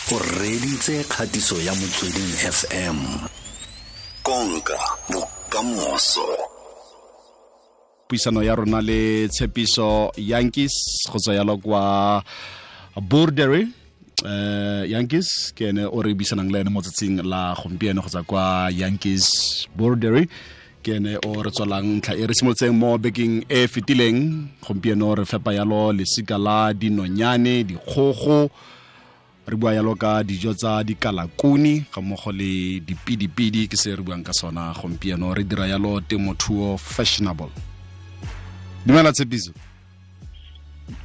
O reditse kgatiso ya Motsweding FM. Konka bokamoso. Puisano ya rona le Tshepiso Yankees go tswa yalo kwa Bordery. Yankees ke ene o re buisanang le ene mo tsatsing la gompieno go tswa kwa Yankees Bordery. Ke ene o re tswalang ntlha e re simolotseng mo bekeng e fetileng. Gompieno re fepa yalo lesika la dinonyane, dikgogo, re bua yalo ka dijo tsa dikalakuni ga mmogo le dipidipidi, ke se re buang ka sona gompieno. Re dira yalo temothuo fashionable. Dumela Tshepiso.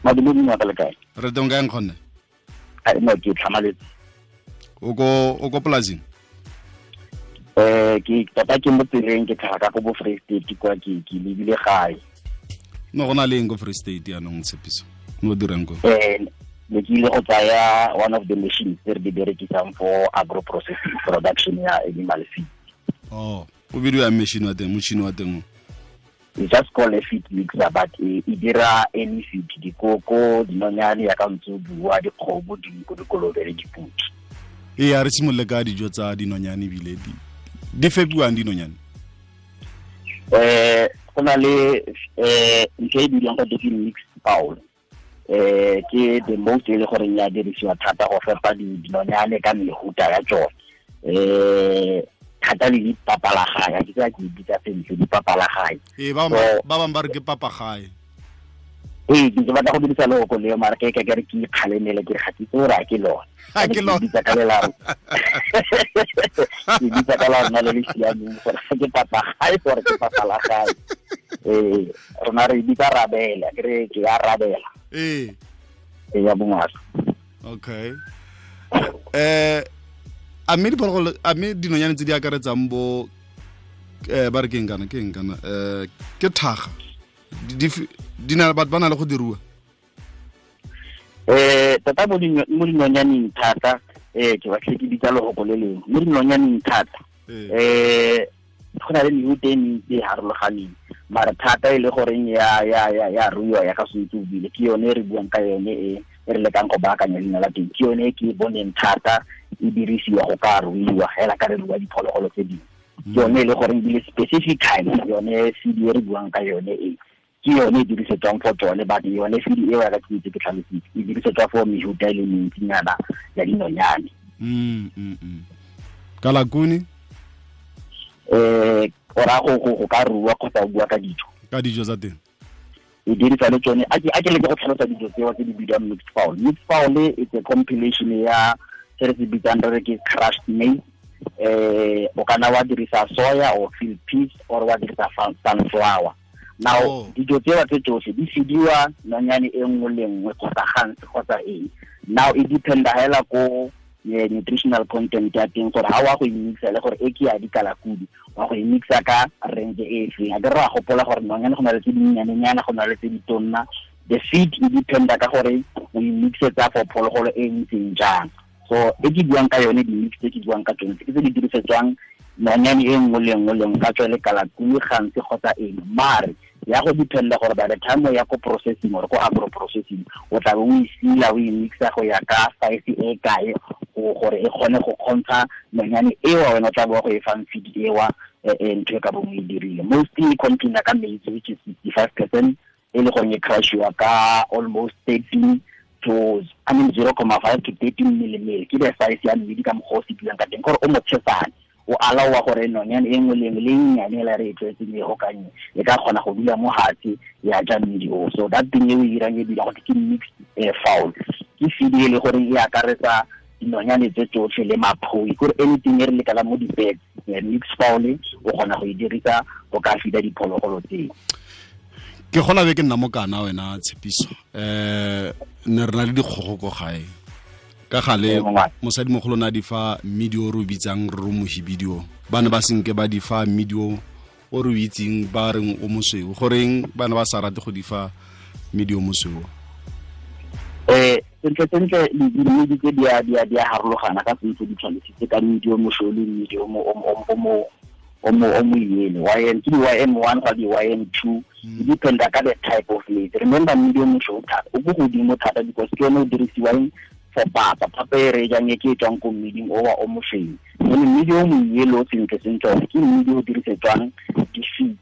Madume ka le kae? Re teng kae nkgonne? Ai no, ke tlhamaletse. O ko polasing? Ke tota ke mo tseleng, ke tlhaga ka ko bo Free State kwa, ke lebile gae. No go na le eng ko Free State yaanong Tshepiso? No dirang ko? Ne ke ile go tsaya one of the machines tse re di berekisang for agro processing production ya animal feed. Oh, o bidiwa machine wa teng, motšhini wa teng? We just call a feed mixer, but e dira any feed, dikoko, dinonyane ya ka ntse o bua, dikgomo, dinko, dikolobe le dipudi. Ee, a re simolole ka dijo tsa dinonyane ebile di fepiwang dinonyane? Go na le ntho e bidiwang go ke mixed fowl. Ke the most e le gore ya dirisiwa thata go fepa dinonyane ka mehuta ya tsone. Thata le dipapalagae, ke tsa ke bitsa sentle dipapalagae. Ee, ba bangwe ba re ke papagae. Ee, ke batla go dirisa loko leo, mara ke ke re ke ikgalemele, ke re ga ke itse gore a ke lone. Ha ke lone. Ke bitsa ka lela. Ke bitsa ka lona le le siameng gore ga ke papagae gore ke papalagae. Rona re bitsa rabela, ke re ke ya rabela. Ee. Ee, ya bongaka. Okay. A mme diphologolo, a mme dinonyane tse di akaretsang bo ba re ke eng kana, ke eng kana, ke thaga. Di na, batho ba na le go di rua? Tota mo dinonyaneng thata, ke batlile ke bitsa lehoko le lengwe. Mo dinonyaneng thata, go na le mehuta e mentsi e harologaneng, mara thata e le goreng ya ruiwa ya ka sentse o buile, ke yone e re buang ka yone e re lekang go baakanya leina la teng. Ke yone e ke e boneng thata e dirisiwa go ka ruiwa hela ka re rua diphologolo tse dingwe. Ke yone e le goreng ebile specifically yone feed e re buang ka yone e, ke yone e dirisetswang for tsone, but yone feed eo ya ka ke itse ke tlhalositse, e dirisetswa for mehuta e le mentsinyana ya dinonyane. Kalakuni? O raya go ka rua kgotsa o bua ka dijo? Ka dijo tsa teng. E dirisa le tsone. A ke leke go tlhalosa dijo tseo tse di bidiwang mixed fowl. Mixed fowl it's a compilation ya se re se bitsang re re ke crushed maize. O kana wa dirisa soya or field peas or wa dirisa sunflower. Now, dijo tseo tse tsotlhe di fidiwa nonyane e nngwe le nngwe kgotsa gantsi kgotsa eng. Now e dependa hela ko nutritional content ya teng gore ha wa go e mixa le gore e ke ya dikalakudi, wa go e mixa ka range e feng. A ke re wa gopola gore nonyane go na le tse dinnyanenyana, go na le tse ditonna. The feed e dependa ka gore o e mixetsa for phologolo e ntseng jang. So e ke buang ka yone, di-mix tse ke buang ka tsone ke tse di dirisetswang nonyane e nngwe le nngwe le nngwe, ka tswa le kalakudi gantsi kgotsa eng. Mare ya go dependa gore by the time o ya ko processing or ko agro processing, o tla be o e sila, o e mixa go ya ka size e kae gore e kgone go kgontsha nonyane eo wena o tla bo go e fang feed ewa, ntho e ka bong o e dirile. Mostly e container ka maize, which is 65%, e le gore e crushiwa ka almost thirteen to, I mean, 0.5 to 13 millimeter. Ke the size ya mmidi ka mokgwa o se buang ka teng, gore o motshesane, o alaowa gore nonyane e nngwe le nngwe le e nnyane e la re e tlwaetseng e gokanye, e ka kgona go dula mo fatshe ya ja mmidi o. So that thing e o e dirang e dira gore ke mixed fowl. Ke feed e le gore e akaretsa dinonyane tse tsotlhe le maphoi, kore anything e re lekalang mo di-birds, mixed fowl o kgona go e dirisa go ka feeda diphologolo tseo. Ke gola be ke nna mokana wena Tshepiso. Ne re na le dikgogo ko gae. Ka gale mosadimogolo na di fa mmidi o re o bitsang re o mohibidi o. Ba ne ba senke ba di fa mmidi o re o itseng ba reng o mosweu. Goreng ba ne ba sa rate go di fa mmidi o mosweu? Sentle sentle mmidi tse di a harologana ka sentse di tshwanetse ka mmidi o mosweu le mmidi o mo yele. YM ke di YM1 ga di YM2, e dependa ka the type of maize. Remember mmidi o mosweu thata o ko godimo thata because ke yone o dirisiwang for papa. Papa e re jang e ke tswang ko mmiding o wa o mosweu. Mme mmidi o moyelo sentle sentle one ke mmidi o dirisetswang di-feeds.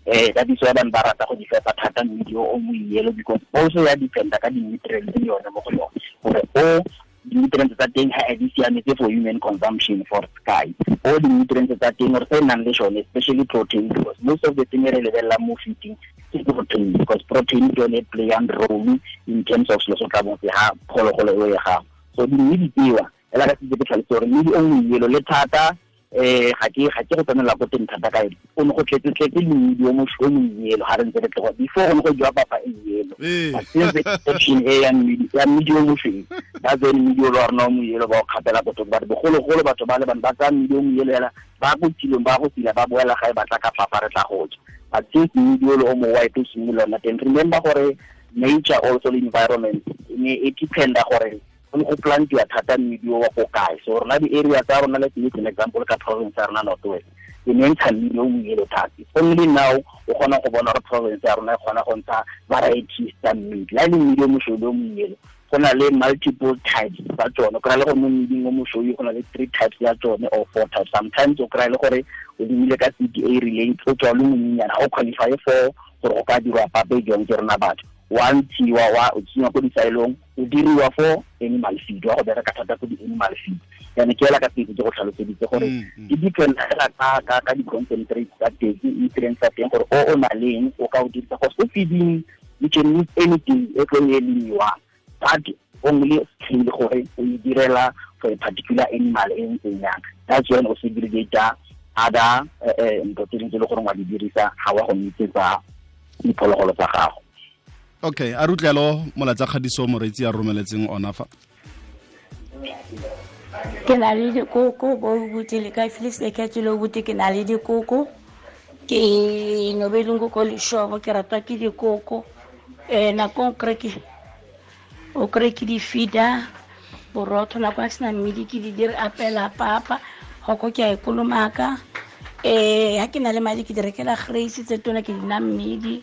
That is why bana ba rata go di fepa thata mmidi o moyelo, because also ya dependa ka di-nutrients le yone mo go yone, gore o di-nutrients tsa teng ha di siametse for human consumption for sky, o di-nutrients tsa teng or tse nang le sone, especially protein, because most of the thing re lebelelang mo feeding ke protein, because protein ke yone play and role in terms of selo se tla bong se ha phologolo eo ya gago. So di-mmidi tsewa ela ka setse ke tlhalose gore mmidi o moyelo le thata, ga ke go tsenela ko teng thata ka ene, o ne go tletse le mmidi o moyelo ga re ntse re tloga before go ne go jewa papa e yelo. But since the inception e ya mmidi o mosweu, that's when mmidi o le wa rona o moyelo ba o kgapela ko thoko. But bogologolo batho ba le bane ba tsaya mmidi o moyelo hela ba ko tilong, ba go tila, ba boela gae, ba tla ka papa re tla go ja. But since mmidi o le o mo white o simolola ona teng, remember gore nature also the environment e ne e dependa gore go go plantiwa thata mmidi o wa ko kae. So rona di-area tsa rona, let's make an example ka province ya rona North West, e ne ntsha mmidi o moyelo thata. Only now o kgona go bona gore province ya rona e kgona go ntsha varieties tsa mmidi. La e le mmidi o mosweu le o moyelo, go na le multiple types tsa tsone. O kry-a le gore mo mmiding o mosweu go na le 3 types ya tsone or 4 types. Sometimes o kry-a le gore o lemile ka seed e rileng, o tswa o le monyenyana, ga o qualify for gore o ka dirwa papa e jwang ke rona batho. Wa ntshiwa, wa o tsenngwa ko disaelong, o diriwa for animal feed, wa go bereka thata ko di-animal feed. Jaanong ke hela ka pele ke go tlhaloseditse gore di depend fela ka di-concentrate tsa teng, nutrients tsa teng, gore o na leng o ka o dirisa. Because ko feeding you can use anything e tlo e lemiwang, but only scale gore o e direla for a particular animal e ntseng yang. That's when o segregate other ntho tse dingwe tse e le gore wa di dirisa ga wa go nitsetsa diphologolo tsa gago. Okay, a rutlelo molatsa kgadiso moreetsi a romeletseng ona fa. Ke na le dikoko bo buti le ka Felix le ka tselo buti, ke na le dikoko, ke nobeleng ko leshobo, ke ratwa ke dikoko. Nako o kry ke di feeder borotho, nako a sena mmidi ke di dire apela papa, goko ke a e kolomaka. Ha ke na le madi ke di rekela grace tse tona ke di na mmidi.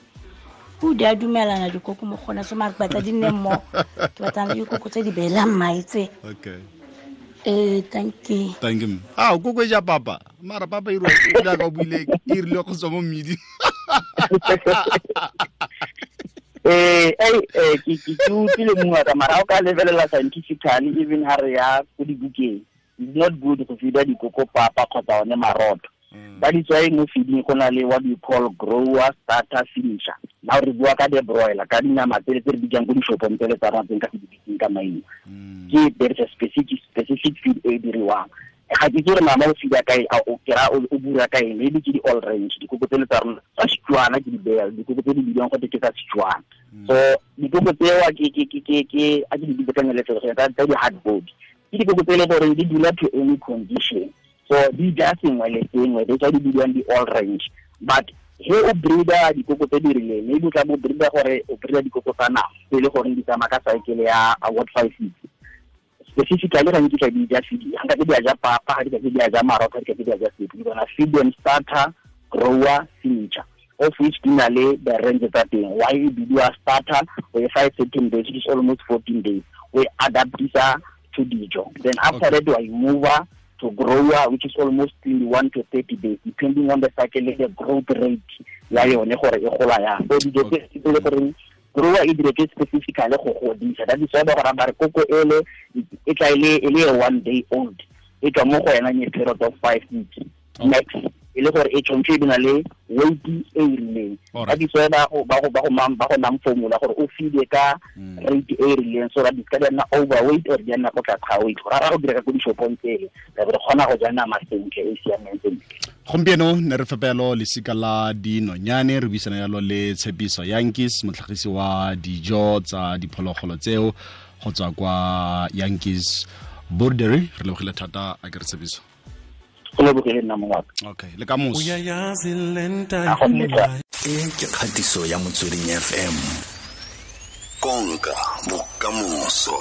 O di a dumelana dikoko mo gona, so mare ke batla di nne mmogo, ke batla le dikoko tse di beelang mae tse. Okay. Thank you. Thank you. Ah, koko e ja papa. Mara papa e rile ka o buile, e rile go tswa mo mmidi. Ke utlwile mongwe ka mara o ka lebelela scientifically, even ha re ya ko dibukeng, it's not good go feeda dikoko papa kgotsa one marotho. That is why mo feeding go na le what we call grower, starter, finisher. Now re bua ka the broiler, ka dinama tse re bitsang ko dishopong tsele tsa rona tse nka se di bitseng ka maina. Ke there is a specific feed e diriwang. Ga ke itse gore mama o feeda kae, a o kry-a o bura kae, maybe ke di-all range, dikoko tsele tsa rona tsa Setswana ke di beya, dikoko tse di bidiwang gote ke tsa Setswana. So dikoko tsewa ke a ke di bitse ka nyeletsego tsa di-hard body. Ke dikoko tse e le gore di dula to any condition. So di ja sengwe le sengwe, that's why di bidiwang di-all range. But he o breeder dikoko tse di rileng, maybe o tla bo breeder gore o breeder dikoko tsa nama tse e le gore di tsamaya ka cycle ya award 5 weeks. Specifically ga nkitla di ja feed, ga nka ke di a ja papa, ga di ka ke di a ja marotho, ga di ka ke di a ja sepe. Di bona feed and starter, grower, finisher, of which di na le the range tsa teng. Why e bidiwa starter? O e fa 13 days, which is almost 14 days. We adaptisa to dijo. Then after that we move to grower, which is almost 21 to 30 days, depending on the cycle and the growth rate ya yone gore e gola yang. So dijo tse di le gore grower e diretswe specifically go godisa. That is why ba gore ba re koko ele e tla e le 1 day old, e tswa mo go yena in a period of 5 weeks max, e le gore e tshwanetse e be na le weight e e rileng. That is why ba go nang formula gore o feede ka rate e rileng, so that di ka di nna overweight or di nna ko tlase ga weight. Gore ra go dira ka ko dishopong tsele, re kgona go ja nama sentle e siameng sentle. Gompieno ne re fepelo lesika la dinonyane, re buisana yalo le Tshepiso Yankees, motlhagisi wa dijo tsa diphologolo tseo go tswa kwa Yankees Boerdery. Re lebogile thata a ke re Tshepiso. Go lebogile nna mongwe wa ka. Okay, le ka moso. E ke kgatiso ya Motsweding FM. Konka bokamoso.